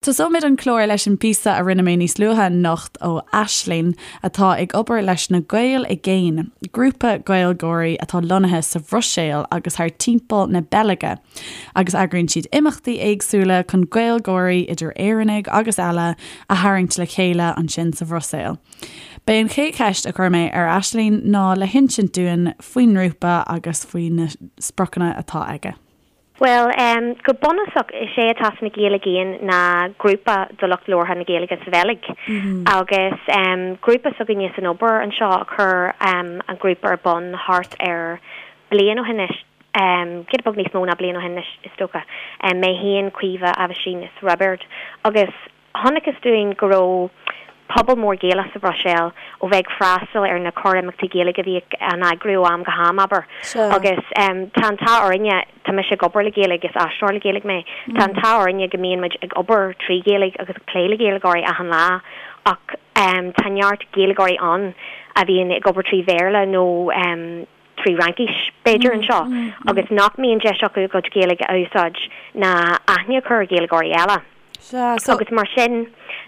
Tosóimid an clár leis an bpíosa a rinne mé níos luaithe anocht ó Aisling, atá ag obair leis na Gaeil i gCéin, grúpa Gaeilgeoirí atá lonnaithe sa Bhruiséil agus thar timpeall na Beilge, agus eagraíonn siad imeachtaí éagsúla chun Gaeilgeoirí, idir Éireannaigh agus eile, a tharraingt le chéile ansin sa Bhruiséil. B'é an chéad cheist a chuir mé ar Aisling ná le hinsint dúinn faoin ngrúpa agus faoi na spriocanna atá aige. Bhuel, go bunúsach, is é atá sna Gaeil i gCéin ná grúpa do lucht labhartha na Gaeilge sa Bheilg. Agus grúpa s'againne san obair anseo a chuir an grúpa ar bun thart ar bliain ó shin anois, giota beag níos mó ná bliain ó shin anois, is dócha. Mé féin, Caoimhe, Aibhistín is Roibeard. Agus Chonacthas dúinn go raibh pobal mór Gaelach sa Bhruiséil ó bheith ag freastal ar na corr-imeachtaí Gaeilge a bhíodh á n-eagrú ó am go ham, abair. Agus tá an t-ádh orainne, tá mise ag obair le Gaeilge, is aistritheoir le Gaeilge mé, tá an t-ádh orainne go mbíonn muid ag obair trí Ghaeilge agus ag plé le Gaeilgeoirí achan lá ach tá neart Gaeilgeoirí ann a bhíonn ag obair trí Bhéarla nó 3 Fhraincis, b'fhéidir, anseo agus nach mbíonn deis acu a gcuid Gaeilge a úsáid ná aithne a chur ar Ghaeilgeoirí eile. Agus mar sin,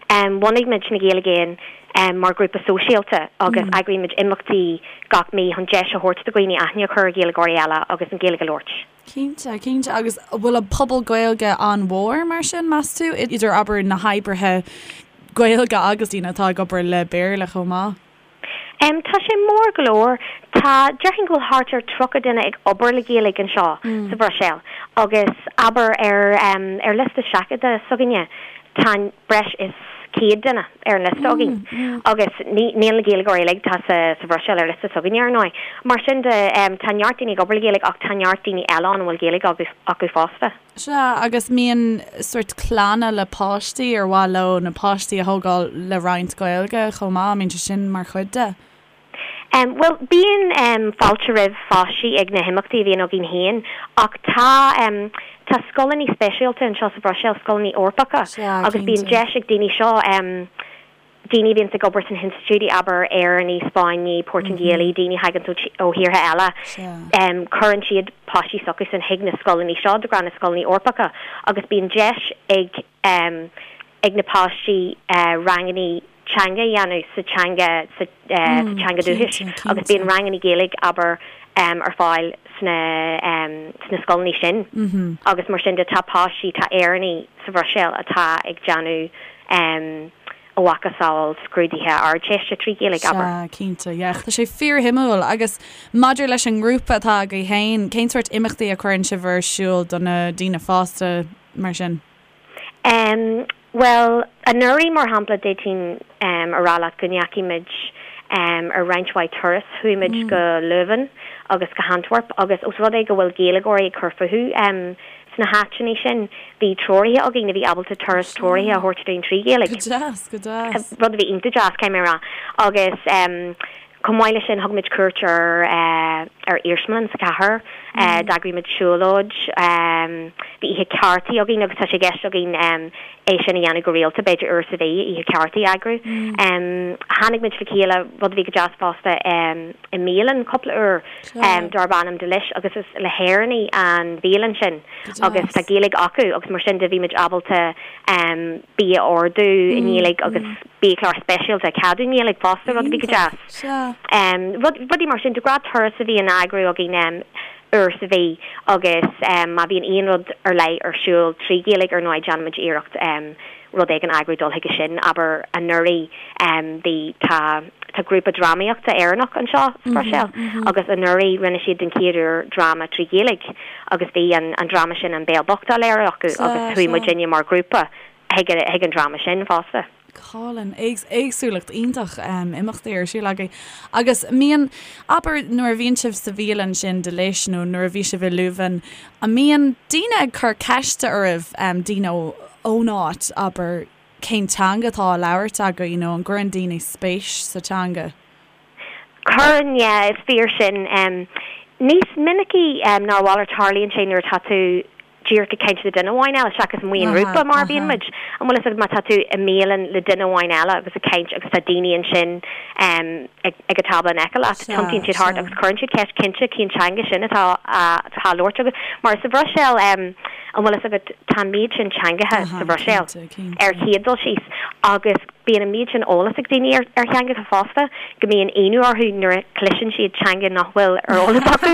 bhunaigh muid Na Gaeil i gCéin mar ghrúpa sóisialta agus eagraímid imeachtaí gach mí chun deis a thabhairt do dhaoine aithne a chur ar Ghaeilgeoirí eile agus an Ghaeilge a labhairt. Cinnte, cinnte. Agus an bhfuil an pobal Gaeilge an-mhór mar sin, meas tú, idir, abair, na hoibrithe Gaeilge agus daoine atá ag obair le Béarla chomh maith? Tá sé mór go leor. Tá, déarfainn go bhfuil thart ar 30 duine ag obair le Gaeilge anseo sa Bhruiséil agus abair ar ar liosta seachadta s'againne tá breis is 100 duine ar an liosta againn agus ní níl na Gaeilgeoirí uilig atá sa sa Bhruiséil ar liosta s'againne ar ndóigh. Mar sin de tá neart daoine ag obair le Gaeilge ach tá neart daoine eile ann a bhfuil Gaeilge acu fosta. Sea, agus mbíonn sórt clanna le páistí ar mhaith leo na páistí a thógáil le roinnt Gaeilge chomh maith, an mbíonn sé sin mar chuid de? Bhuel, bíonn fáilte roimh pháistí ag na himeachtaí a bhíonn againn féin ach tá tá scoileanna speisialta anseo sa Bhruiséil, scoileanna Eorpacha, agus bíonn deis ag daoine seo daoine a bhíonns ag obair sna hinstitiúidí, abair, Éireannaigh, Spáinnigh, Portaingéalaigh, daoine a thaganns ó thíortha eile, cuireann siad páistí s'acusan chuig na scoileanna seo, de ghnáth na scoileanna Eorpacha, agus bíonn deis ag ag na páistí ranganna teanga a dhéanamh sa teanga sa teanga dúchais agus bíonn ranganna Gaeilge, abair, ar fáil sna sna scoileanna sin agus mar sin de tá páistí, tá Éireannaigh sa Bhruiséil atá ag déanamh a mhacasamhail scrúduithe Ardteiste 3 Ghaeilge, abair. Sea, cinnte, yeah. Tá sé fíorshuimiúil. Agus maidir leis an ngrúpa atá agaibh féin, cén sórt imeachtaí a chuireann sibh ar siúl do na daoine fásta mar sin? Em, bhuel, anuraidh, mar shampla, d'fhéadfainn em a rá leat go ndeachaigh muid em ar roinnt mhaith turas. Chuaigh muid go Leuven agus go hAntwerp agus os rud é go bhfuil Gaeilgeoirí ag cur fúthu em Sna háiteanna sin, bhí treoraithe againn a bhí ábalta turas treoraithe a thabhairt dúinn 3 Ghaeilge. Go deas, go deas. Rud a bhí iontach deas, caithfidh mé a rá. Agus chomh maith leis sin, thug muid cuairt ar ar iarsmalann sa chathair, d'eagraigh muid siúlóid, bhí oíche cártaí againn agus tá sé i gceist againn é sin a dhéanamh go rialta, b'fhéidir uair sa mhí, oíche cártaí a eagrú. Tháinig muid le chéile, rud a bhí go deas fosta, i mbialann cúpla uair. darb ainm Delish agus is le hÉireannaigh an bhialann sin agus tá Gaeilge acu agus mar sin de bhí muid ábalta bia a ordú i nGaeilge agus biachlár speisialta a cheadú i nGaeilge fosta, rud a bhí go deas. Rud, rudaí mar sin, de ghnáth turas a bhíonn á eagrú againn uair sa mhí agus má bhíonn aon rud ar leith ar siúl 3 Ghaeilge ar ndóigh déanaimid iarracht rud éigin a eagrú dul chuige sin. Abair, anuraidh bhí, tá, tá grúpa drámaíochta Éireannach anseo sa Bhruiséil agus anuraidh rinne siad den chéad uair dráma 3 Ghaeilge agus bhí an, an dráma sin An Béal Bocht á léiriú acu agus chuaigh muidinne mar ghrúpa chuig, chuig an dráma sin fosta. Go hálainn. Éagsúlacht iontach imeachtaí ar siúl agaibh. Agus mbíonn, abair nuair a bhíonn sibh sa bhialann sin Delish nó nuair a bhí sibh i Leuven, an mbíonn daoine ag cur ceiste oraibh, daoine ón áit, abair, cén teanga atá á labhairt agaibh, you know, an gcuireann daoine spéis sa teanga? Cuireann, yeah, is fíor sin. Níos minicí ná a mhalairt tarlaíonn sé nuair atá tú. díreach ag caint le duine amháin eile seachas amuigh i ngrúpa mar a bhíonn muid. An bhfuil fhios agat má tá tú i mbialann le duine amháin eile agus ag caint agus tá daoine ansin ag ag an tábla in aice leat, tiontaíonn siad thart agus cuireann siad ceist cinnte cén teanga sin atá á labhairt agat. Mar sa Bhruiséil, an bhfuil fhios agat, tá an méid sin teangacha sa Bhruiséil ar chéad dul síos agus Bíonn an méid sin eolas ag daoine ar theangacha fosta go mbíonn ionadh orthu nuair a chloiseann siad teanga nach bhfuil ar eolas acu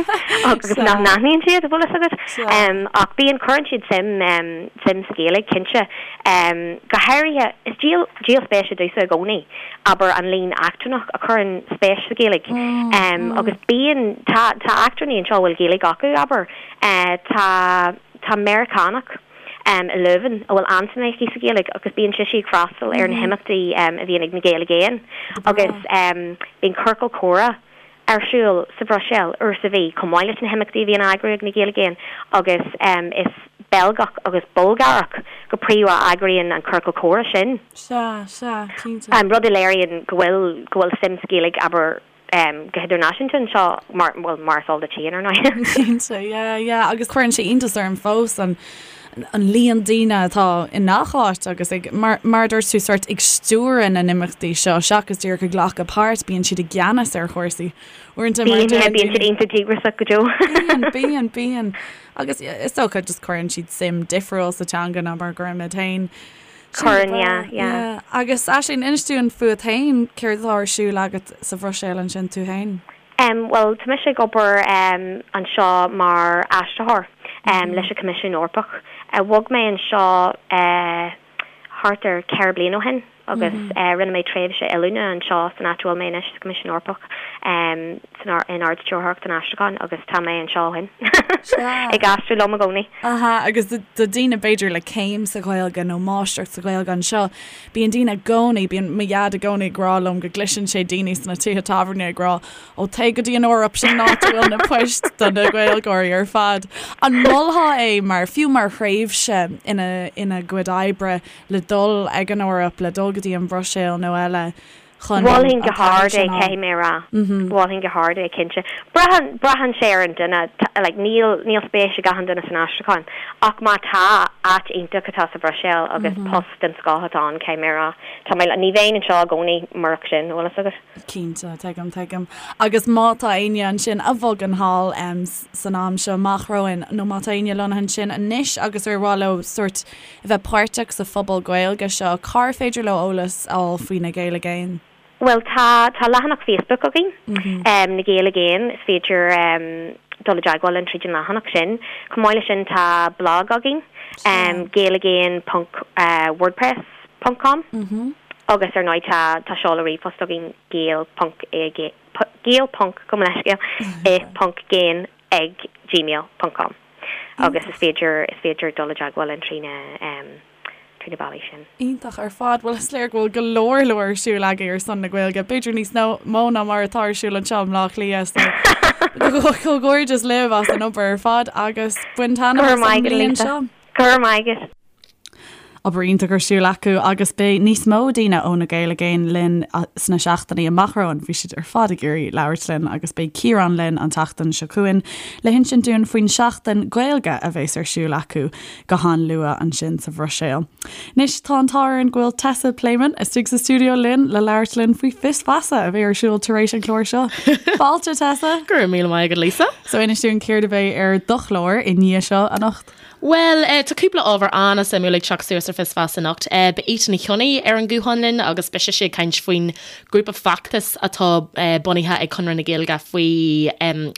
agus nach n-aithníonn siad, an bhfuil fhios agat. Ach bíonn, cuireann siad suim, suim sa Ghaeilge, cinnte. Go háirithe, is díol, díol spéise domhsa i gcónaí, abair, an líon eachtrannach a chuireann spéis sa Ghaeilge. Agus bíonn, tá, tá eachtrannaigh anseo a bhfuil Gaeilge acu, abair. Tá, tá Meiriceánach. i Leuven, a bhfuil an-suim aici sa Ghaeilge agus bíonn sise ag freastal ar na himeachtaí a bhíonn ag na Gaeil i gCéin agus bíonn ciorcal comhrá ar siúl sa Bhruiséil uair sa mhí chomh maith leis na himeachtaí a bhíonn á eagrú ag na Gaeil i gCéin agus is Beilgeach agus Bulgárach go príomha a eagraíonn an ciorcal comhrá sin. Sea, sea, cinnte. Rud a léiríonn go bhfuil, go bhfuil suim sa Ghaeilge, abair, go hidirnáisiúnta anseo, mar, bhuel, mar is eol duit féin, ar ndóigh. Cinnte, yeah, yeah, agus cuireann sé iontas orm fós an, an líon daoine atá i ngach áit agus ag, mar, mar a dúirt tú, sort ag stiúradh na n-imeachtaí seo seachas díreach ag glacadh páirt, bíonn siad i gceannas ar chúrsaí. Uaireanta mar Bíonn, yeah, bíonn siad iontach díograiseach go deo. Bíonn, bíonn, bíonn. Agus is dócha just cuireann siad suim difriúil sa teanga ná mar a gcuirimid féin. Cuireann, yeah, yeah. Agus Aisling, inis dúinn fút féin, céard atá ar siúl agat sa Bhruiséil ansin tú féin? Em, bhuel, tá mise ag obair em anseo mar aistritheoir em leis an Choimisiún Eorpach. Bhog mé anseo eh thart ar cheithre bliana ó shin agus eh rinne mé tréimhse oiliúna anseo san áit a bhfuil mé anois, sa Choimisiún Eorpach, em san in Ard-Stiúrthóireacht an Aistriúcháin agus tá mé anseo ó shin ag aistriú liom i gcónaí. Aha, agus do daoine b'fhéidir le céim sa Ghaeilge nó máistreacht sa Ghaeilge anseo, bíonn daoine i gcónaí, bíonn mo dhaid i gcónaí ag rá liom go gcloiseann sé daoine sna tithe tábhairne ag rá, ó téigh go dtí an Eoraip, sin an áit a bhfuil na poist do na Gaeilgeoirí ar fad. An molfá é mar, fiú mar thréimhse ina, ina gcuid oibre le dul ag an Eoraip, le dul go dtí an Bhruiséil nó eile? chun an Mholfainn go hard é, caithfidh mé a rá. Mholfainn go hard é, cinnte. Braitheann, braitheann sé ar an duine, like, níl, níl spéis ag achan duine san aistriúchán, ach má tá, áit iontach atá sa Bhruiséil agus post den scoth atá ann, caithfidh mé a rá. Tá mé, ní bheinn anseo i gcónaí murach sin, an bhfuil fhios agat? Cinnte, tuigim, tuigim. Agus má tá éinne ansin a bhogann thall san am seo amach romhainn, nó má tá éinne lonnaithe ansin anois agus ar mhaith leo sórt a bheith páirteach sa phobal Gaeilge seo, cár féidir leo eolas a fháil faoi Na Gaeil i gCéin? Bhuel, tá, tá leathanach Facebook againn, Na Gaeil i gCéin, is féidir dul i dteagmháil linn tríd an leathanach sin. Chomh maith leis sin tá blag againn, gaeligéin ponc wordpress ponc com agus ar ndóigh tá, tá seoladh ríomhphost againn, gael ponc i, gael ponc, gabh mo leithscéal, i ponc gcéin ag gmail ponc com agus is féidir is féidir dul i dteagmháil linn trí na trí na bealaí sin. Iontach ar fad. Bhuel is léir go bhfuil go leor leor ar siúl agaibh ar son na Gaeilge, b'fhéidir níos mó ná mar atá ar siúl anseo i mBleá Cliath so comhghairdeas libh as an obair ar fad agus bain taitneamh as an mbliain seo. Go raibh maith agat. Obair iontach ar siúl acu agus beidh níos mó daoine ó Na Gaeil i gCéin linn sna seachtainí amach romhainn. Bhí siad ar fad ag iarraidh labhairt linn agus beidh Ciarán linn an tseachtain seo chugainn le hinsint dúinn faoin seachtain Gaeilge a bheas ar siúl acu go han-luath ansin sa Bhruiséil. Anois tá an t-ádh orainn go bhfuil Tessa Pléimeann istigh sa stiúideo linn le labhairt linn faoi Fios Feasa a bheidh ar siúl tar éis an chláir seo. Fáilte Tessa! Go raibh míle maith agat Lisa. So inis dúinn céard a bheidh ar do chlár i ndiaidh seo anocht? Bhuel, tá cúpla ábhar an-suimiúil ag teacht suas ar Fios Feasa anocht. Beidh Ita Ní Chionnaith ar an nguthán linn agus beidh sise ag caint faoin grúpa feachtais atá bunaithe ag Conradh na Gaeilge faoi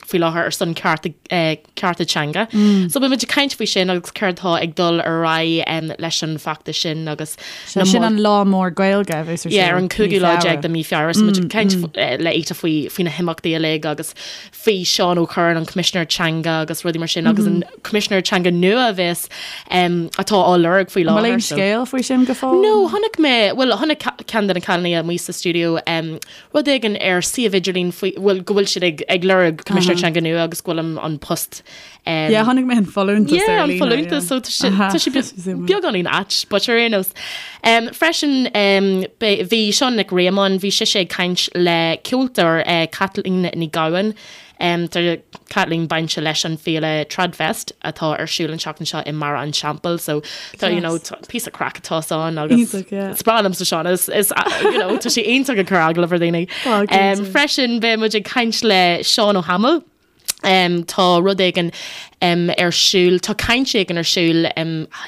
faoi láthair ar son cearta cearta teanga. So beidh muid ag caint faoi sin agus céard atá ag dul ar aghaidh leis an bhfeachtas sin agus na Sin an lá mór Gaeilge a bheas ar siúl. Yeah, ar an cúigiú lá déag de mí Feabhra. So muid ag caint le Ita faoi faoi na himeachtaí uilig agus faoi Seán Ó Cuirreáin, an Coimisinéir Teanga agus rudaí mar sin agus an Coimisinéir Teanga nua a bheas atá á lorg faoi láthair. An bhfuil aon scéal faoi sin go fóill? No, chonaic mé, bhuel, chonaic ceann de na cailíní amuigh sa stiúideo rud éigin ar suíomh idirlín faoi, bhuel, go bhfuil siad ag ag lorg Coimisinéir Teanga nua agus go bhfuil an an post Yeah, chonaic mé an folúntas Yeah, an folúntas, so tá sé tá sé beagáinín ait, but ar aon nós. Freisin, bhí Seán Nic Réamoinn, bhí sise ag caint le ceoltóir, Caitlín Ní Ghabhann. Tá Caitlín bainte leis an féile Tradfest atá ar siúl an tseachtain seo i mBarra an Teampaill so tá you know tá píosa craic atá ann agus Iontach, yeah. is breá liomsa Seán is is you know tá sé iontach ag cur agallamh ar dhaoine. Tá, cinnte. Freisin beidh muid ag caint le Seán Ó hAdhmaill. Tá rud éigin ar siúl, tá caint éigin ar siúl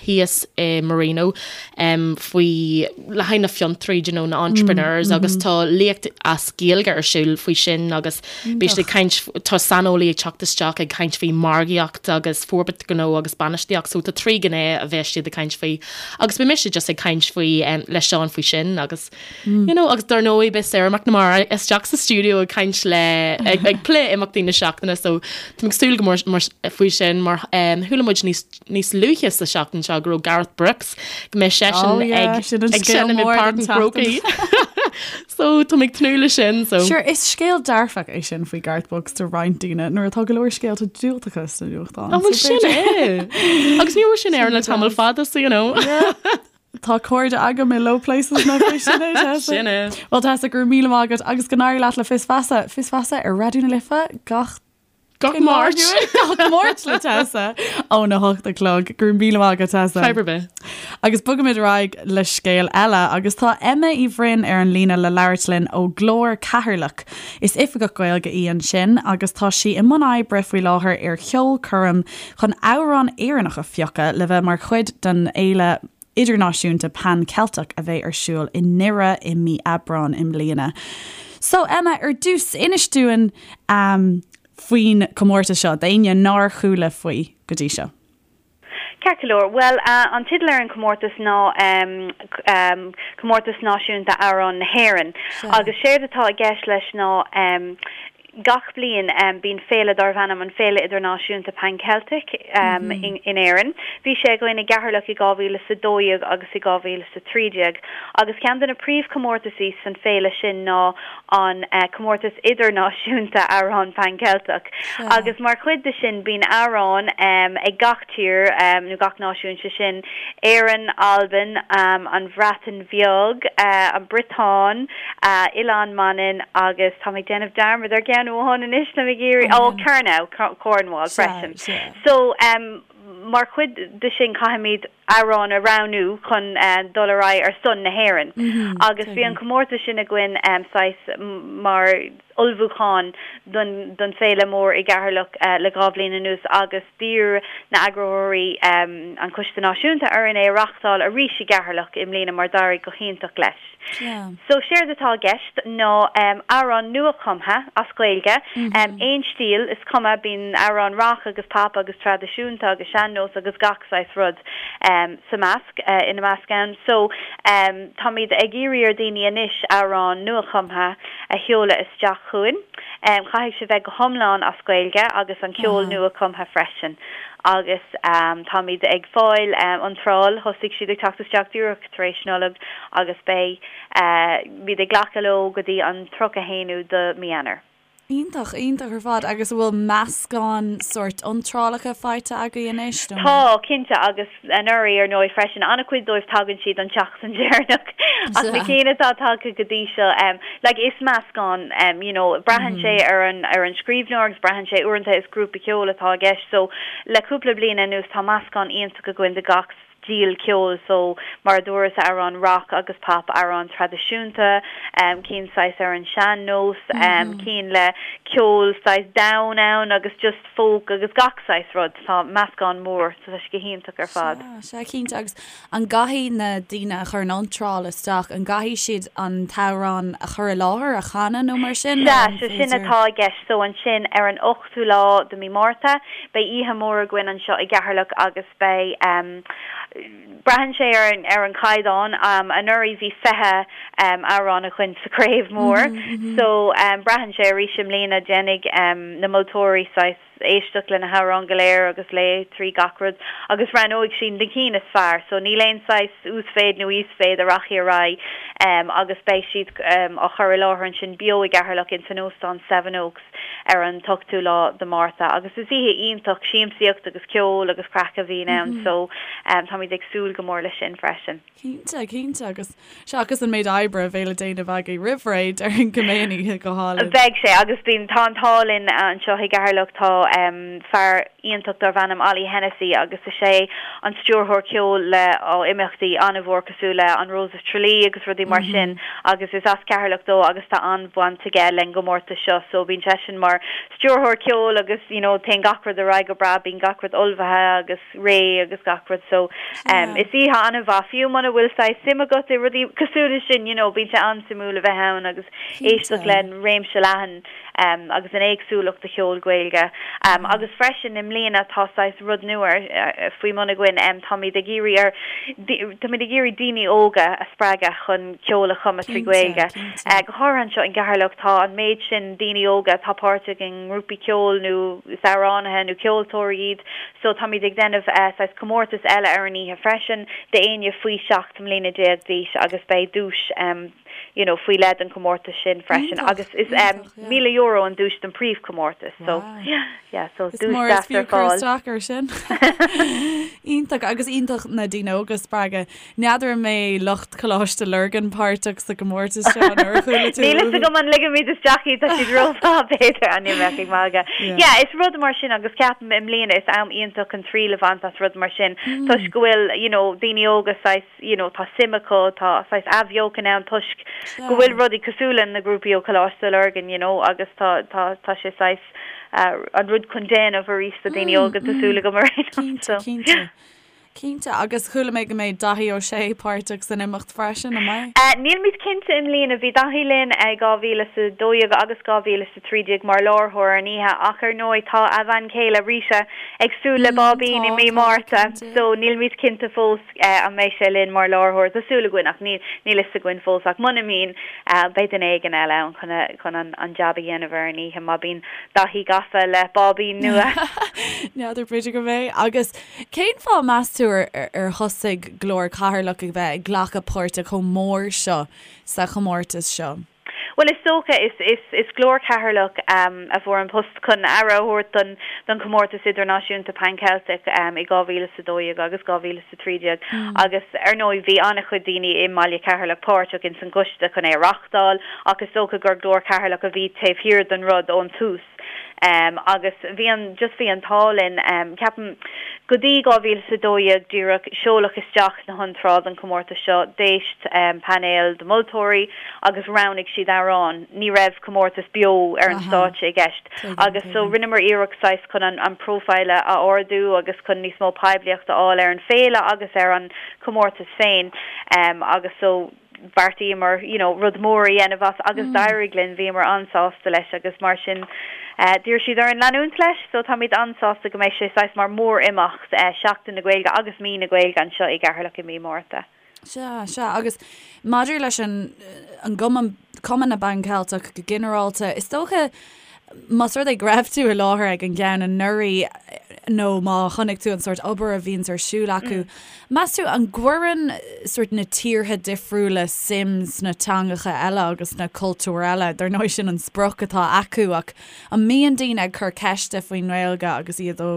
thíos i Marino faoi, le haghaidh na fiontraí, do you know, na entrepreneurs agus tá léacht as Gaeilge ar siúl faoi sin agus beidh siad ag caint, tá saineolaí ag teacht isteach ag caint faoi margaíocht agus forbairt gnó agus bainistíocht so tá trí ghné a bheas siad ag caint faoi agus beidh mise just ag caint faoi le Seán faoi sin agus You know, agus dar ndóigh beidh Sarah McNamara isteach sa stiúideo ag caint le ag, ag plé imeachtaí na seachtaine so táim ag súil go mór mar, faoi sin mar um, chuala muid níos, níos luaithe sa seachtain seo go raibh Garth Brooks go mbeidh seisean Oh, yeah, ag, sin an ag scéal seinm i mór Páirc den an Chrócaigh. so táim ag tnúth le sin so. Sure, is scéal dearfach é sin faoi Garth Brooks do roinnt daoine nuair atá go leor scéalta diúltacha sna nuachtáin. An bhfuil sin é? Agus ní raibh sin ar le tamall fada so you know. Tá cairde agam i low places nach é sin é, Tessa? Sin é. Bhuel Tessa, go raibh míle maith agat agus go n-éirí leat le Fios Feasa. Fios Feasa ar Raidió na Life gach Gach Máirt. Gach Máirt le Tessa óna hocht a chlog. Go raibh míle maith agat Tessa. Fadhb ar bith. Agus bogaimid ar aghaidh le scéal eile agus tá Emma Uí Bhroin ar an líne le labhairt linn ó Glór Ceatharlach. Is oifigeach Gaeilge í ansin agus tá sí i mbun oibre faoi láthair ar cheolchoirm chun amhrán Éireannach a phiocadh le bheith mar chuid den fhéile idirnáisiúnta Pan Ceilteach a bheidh ar siúl i nDoire i mí Aibreáin i mbliana. So Emma, ar dtús, inis dúinn faoin chomórtas seo, d'éinne nár chuala faoi go dtí seo. Ceart go leor. Bhuel, an teideal ar an chomórtas ná Comórtas Náisiúnta Amhrán na hÉireann. Agus séard atá i gceist leis ná gach bliain bíonn féile darbh ainm an Féile Idirnáisiúnta Pan Celtic in Éirinn. Bhí sé againn i gCeatharlach i 2012 agus i 2013. Agus ceann de na príomhchomórtaisí san féile sin ná an Comórtas Idirnáisiúnta Amhrán Pan Ceilteach. Agus mar chuid de sin bíonn amhráin ag gach tír nó gach náisiún, sé sin Éirinn, Albain, an Bhreatain Bheag, an Briotáin, Oileán Manainn agus táim ag déanamh dearmad ar cheann amháin anois, táim ag iarraidh, ó Kernow, Cornwall freisin. So mar chuid de sin caithfimid amhrán a roghnú chun dul ar aghaidh ar son na hÉireann. Agus bhí an comórtas sin againn saghas mar ullmhúchán don don féile mór i gCeatharlach le 2 bhliain anuas agus d'iarr na eagraitheoirí, an Coiste Náisiúnta, orainn é a reachtáil arís i gCeatharlach i mbliana mar d'éirigh go hiontach leis. So séard atá i gceist ná amhrán nua-chumtha as Gaeilge, aon stíl, is cuma, bíonn amhráin rock agus pop agus traidisiúnta agus sean-nós agus gach saghas rud sa measc, ina measc ann. So táimid ag iarraidh ar daoine anois amhrán nua-chumtha a sheoladh isteach chugainn. Caithfidh sé bheith go hiomlán as Gaeilge agus an ceol nua-chumtha freisin. Agus táimid ag fáil iontráil, thosaigh siad ag teacht isteach díreach tar éis Nollag agus beidh muid ag glacadh leo go dtí an 31ú de mí Eanáir. Iontach, iontach ar fad. Agus an bhfuil meascán sórt iontrálacha faighte agaibh anois nó? Tá, cinnte, agus anuraidh ar ndóigh freisin. An-chuid dóibh tagann siad an tseachtain deireanach ach na cinn atá tagtha go dtí seo, like is meascán, you know, braitheann sé ar an ar an scríbhneoir agus braitheann sé uaireanta is grúpa ceoil atá i gceist so le cúpla bliain anuas tá meascán iontach againn de gach stíl ceoil so mar a dúras amhráin rock agus pop, amhráin traidisiúnta, cinn saghas ar an sean nós, cinn le ceol saghas domhain ann agus just folk agus gach saghas rud. Tá meascán mór so tá sé go hiontach ar fad. Sea, sea cinnte agus an gcaithfidh na daoine a chuireann iontráil isteach, an gcaithfidh siad an t-amhrán a chur i láthair, a chanadh nó mar sin? Sea, so sin atá i gceist so ansin ar an 8ú lá de mí Márta beidh oíche mhór againn anseo i gCeatharlach agus Beidh. Braitheann sé ar an ar an chaighdeán. Anuraidh bhí 20 amhrán againn sa chraobh mór so braitheann sé arís i mbliana déanfaidh na moltóirí saghas. éisteacht le na hamhráin go léir agus léamh trí gach rud agus roghnóidh siad na cinn is fearr so níl aon saghas uasmhéid nó íosmhéid a rachaidh ar aghaidh agus beidh siad á chur i láthair ansin beo i gCeatharlach ins an Óstán Seven Oaks ar an t-ochtú lá de Márta agus is oíche iontach siamsaíocht agus ceol agus craic a bhíonn ann so táimid ag súil go mór leis sin freisin. Cinnte, cinnte agus seachas an méid oibre a bheidh le déanamh agaibh roimh ré, déarfainn go mbeidh an oíche go hálainn. Beidh sé agus bíonn, tá an t-ádh linn anseo i gCeatharlach, tá fear iontach darb ainm Ollie Hennessy agus is é an stiúrthóir ceoil le imeachtaí an-mhór cosúil le an Rose of Tralee agus rudaí mar sin agus is as Ceatharlach dó agus tá an-bhaint aige len gcomórtas seo so bíonn seisean mar stiúrthóir ceoil agus you know téann gach rud ar aghaidh go breá, bíonn gach rud ullmhaithe agus. réidh agus gach rud so is oíche an-mhaith fiú muna bhfuil saghas suim agat i rudaí cosúil leis sin you know bíonn sé an-suimiúil a bheith ann agus éisteacht le réimse leathan agus an éagsúlacht de cheol Gaeilge agus freisin i mbliana tá saghas rud nua faoi mbun againn táimid ag iarraidh ar táimid ag iarraidh daoine óga a spreagadh chun ceol a chumadh trí Ghaeilge go háirithe anseo in gCeatharlach tá an méid sin daoine óga atá páirteach i ngrúpaí ceoil nó is amhránaithe nó ceoltóirí iad So táimid ag déanamh saghas comórtas eile ar an oíche freisin d'éinne faoi 17 mbliana d'aois agus beidh duais you know faoi leith don chomórtas sin freisin agus is €1,000 an duais don príomhchomórtas so yeah so duais deas ar fáil. Is mór is fiú cur isteach ar sin. Iontach agus iontach na daoine óga a spreagadh. N'fheadar an mbeidh lucht Choláiste Lurgan páirteach sa gcomórtas seo nó ar chuala tú? Níl fhios agam an ligfimid isteach iad, tá siad rómhaith b'fhéidir, an mbeadh ag magadh. Yeah, is rud mar sin agus ceapaim i mbliana is am iontach chun triail a bhaint as rud mar sin toisc go bhfuil you know daoine óga saghas you know tá suim acu, tá saghas athbheochan ann toisc go bhfuil rudaí cosúil le na grúpaí ó Choláiste Lurgan you know agus tá tá tá sé saghas an rud chun déanamh arís do daoine óga tá súil agam ar aon nós. Cinnte, cinnte. Cinnte, agus chuala mé go mbeidh Daithí Ó Sé páirteach san imeacht freisin, an mbeidh? Nílimid cinnte i mbliana. Bhí Daithí linn i 2012 agus 2013 mar láithreoir ar an oíche ach ar ndóigh tá a bhean chéile Rita ag súil le báibín i mí Márta so nílimid cinnte fós an mbeidh sé linn mar láithreoir. Tá súil againn ach níl fhios againn fós ach muna mbíonn beidh duine éigin eile ann chun an jab a dhéanamh ar an oíche má bíonn Daithí gafa le báibín nua. N'fheadar, b'fhéidir go mbeidh. Agus Cén fáth, meas tú, ar thosaigh Glór Cheatharlach ag bheith ag glacadh páirte chomh mór seo sa chomórtas seo? Bhuel, is dócha, is, is, is Glór Cheatharlach a fuair an post chun aire a thabhairt don, don chomórtas idirnáisiúnta Pan Celtic i 2012 agus 2013 agus ar ndóigh bhí an-chuid daoine i mbaile Cheatharlach páirteach ins an gcoiste chun é a reachtáil ach is dócha gur Glór Cheatharlach a bhí taobh thiar den rud ón tús. Agus bhí an, just bhí an t-ádh linn, ceapaim, go dtí 2012 díreach, seoladh isteach na hiontráil don chomórtas seo, d'éist painéal de mholtóirí agus roghnaigh siad amhrán, ní raibh comórtas beo ar an stáitse i gceist. Agus so rinneamar iarracht saghas chun an an profile a ardú agus chun níos mó poiblíocht a fháil ar an féile agus ar an chomórtas féin agus so, bheartaíomar you know rud mór a dhéanamh as agus d'éirigh linn, bhíomar an-sásta leis agus mar sin d'iarr siad orainn leanúint leis so táimid an-sásta go mbeidh sé saghas mar mór-imeacht Seachtain na Gaeilge agus Mí na Gaeilge anseo i gCeatharlach i mí Márta. Sea, sea agus maidir leis an an gcumann, Cumann na bPan Ceilteach go ginearálta, is dócha Más rud é go raibh tú i láthair ag an gceann anuraidh nó má chonaic tú an sórt obair a bhíonns ar siúl acu, meas tú an gcuireann sórt na tíortha difriúla suim sna teangacha eile agus sna cultúir eile? Dar ndóigh sin an sprioc atá acu ach an mbíonn daoine ag cur ceiste faoin nGaeilge agus iad ó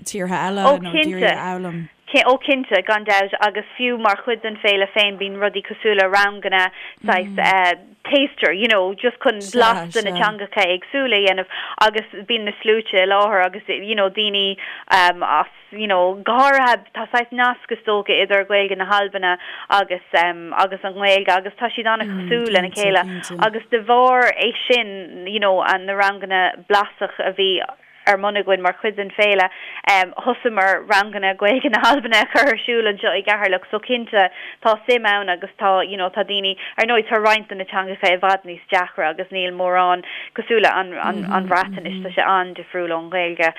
tíortha eile nó ag iarraidh a fhoghlaim? Ó cinnte, gan dabht, agus fiú mar chuid den féile féin bíonn rudaí cosúil le ranganna saghas taster, you know, just chun blas de na teangacha éagsúla a dhéanamh agus bíonn na sluaite i láthair agus you know daoine as you know go háirithe tá saghas nasc is dócha idir Gaeilge na hAlbana agus agus an Ghaeilge agus tá siad an-chosúil lena chéile agus de bharr é sin you know na ranganna blasach a bhí ar bun againn mar chuid den féile. Thosaíomar ranganna Gaeilge na hAlbana a chur ar siúl anseo i gCeatharlach so cinnte tá suim ann agus tá you know tá daoine, ar ndóigh tá roinnt de na teangacha i bhfad níos deacra agus níl mórán cosúil le an an an Bhreatnais, tá sé an-difriúil ón Ghaeilge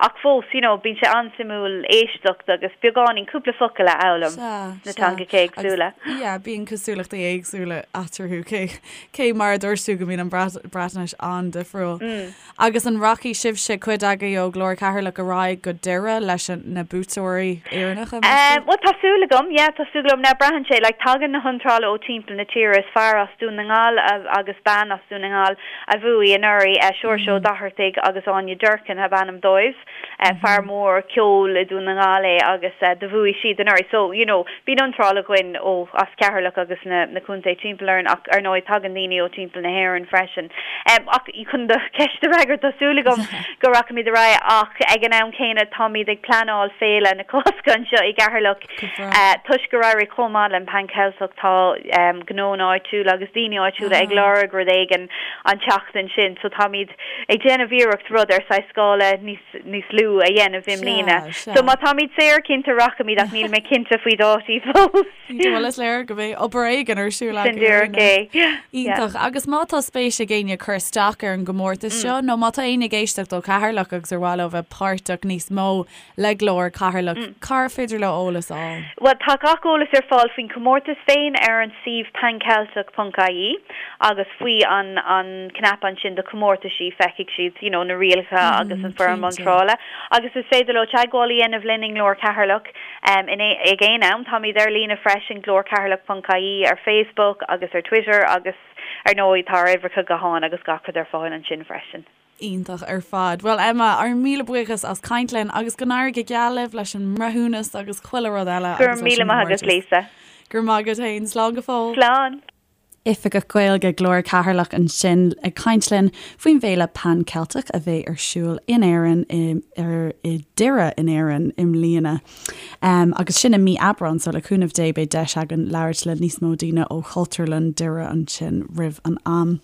ach fós you know bíonn sé an-suimiúil éisteacht agus beagáinín cúpla focal a fhoghlaim sna teangacha éagsúla. Yeah, bíonn cosúlachtaí éagsúla eatarthu cé cé mar a dúirt tú go mbíonn an Breatnais an-difriúil. Agus an rachaidh sibhse? sibhse, cuid agaibh ó Ghlór Cheatharlach ar aghaidh go Doire leis na buaiteoirí Éireannacha, meas tú? Bhuel, tá súil agam, yeah, tá súil agam. Now, braitheann sé, like, tagann na hiontrálaithe ó timpeall na tíre. Is fear as Dún na nGall agus bean as Dún na nGall a bhuaigh anuraidh, Seoirse Ó Dochartaigh agus Áine Durkin ab ainm dóibh. Fear mór ceoil i Dún na nGall é agus do bhuaigh siad anuraidh. So, you know, bíonn iontráil againn ó, as Ceatharlach agus na, na contaetha timpeall orainn ach ar ndóigh tagann daoine ó timpeall na hÉireann freisin. Ach chun do cheist a fhreagairt, tá súil agam go rachaimid ar aghaidh ach ag an am céanna táimid ag pleanáil Féile na Cásca anseo i gCeatharlach. Toisc gur éirigh chomh maith le Pan Ceilteach tá gnónna áitiúla agus daoine áitiúla ag lorg rud éigin an tseachtain sin so táimid ag déanamh iarracht rud ar saghas scála níos níos lú a dhéanamh i mbliana. So má táimid saor cinnte rachaimid ach níl mé cinnte faoi dátaí fós. Bhuel is léir go mbeidh obair éigin ar siúl agaibh. Sin díreach é. Yeah. Iontach. Agus má tá spéis ag éinne cur isteach ar an gcomórtas seo nó má tá éinne ag éisteacht ó Cheatharlach agus ar mhaith leo bheith páirteach níos mó le Glór Cheatharlach, cár féidir leo eolas a fháil? Bhuel, tá gach eolas ar fáil faoin chomórtas féin ar an suíomh panceltic ponc ie agus faoi an an cnaipe ansin do comórtaisí feicfidh siad you know na rialacha agus an foirm iontrála agus is féidir leo teagmháil a dhéanamh linn i nGlór Cheatharlach in ag aon am. Táimid ar líne freisin glórcheatharlach ponc ie ar Facebook agus ar Twitter agus ar ndóigh tá ár uimhreacha gutháin agus gach rud ar fáil ansin freisin. Iontach ar fad. Bhuel Emma, ár míle buíochas as caint linn agus go n-éirí go geal libh leis an mbreithiúnas agus chuile rud eile Go raibh míle maith agat Lisa. Go raibh maith agat fhéin. Slán go fóill. Slán. Oifigeach Gaeilge Glór Cheatharlach ansin ag caint linn faoin bhféile Pan Ceilteach a bheidh ar siúl in Éirinn i ar i Doire in Éirinn i mbliana. Um, agus sin i mí Aibreán so le cúnamh Dé beidh deis againn labhairt le níos mó daoine ó Chultúrlann Doire ansin roimh an am.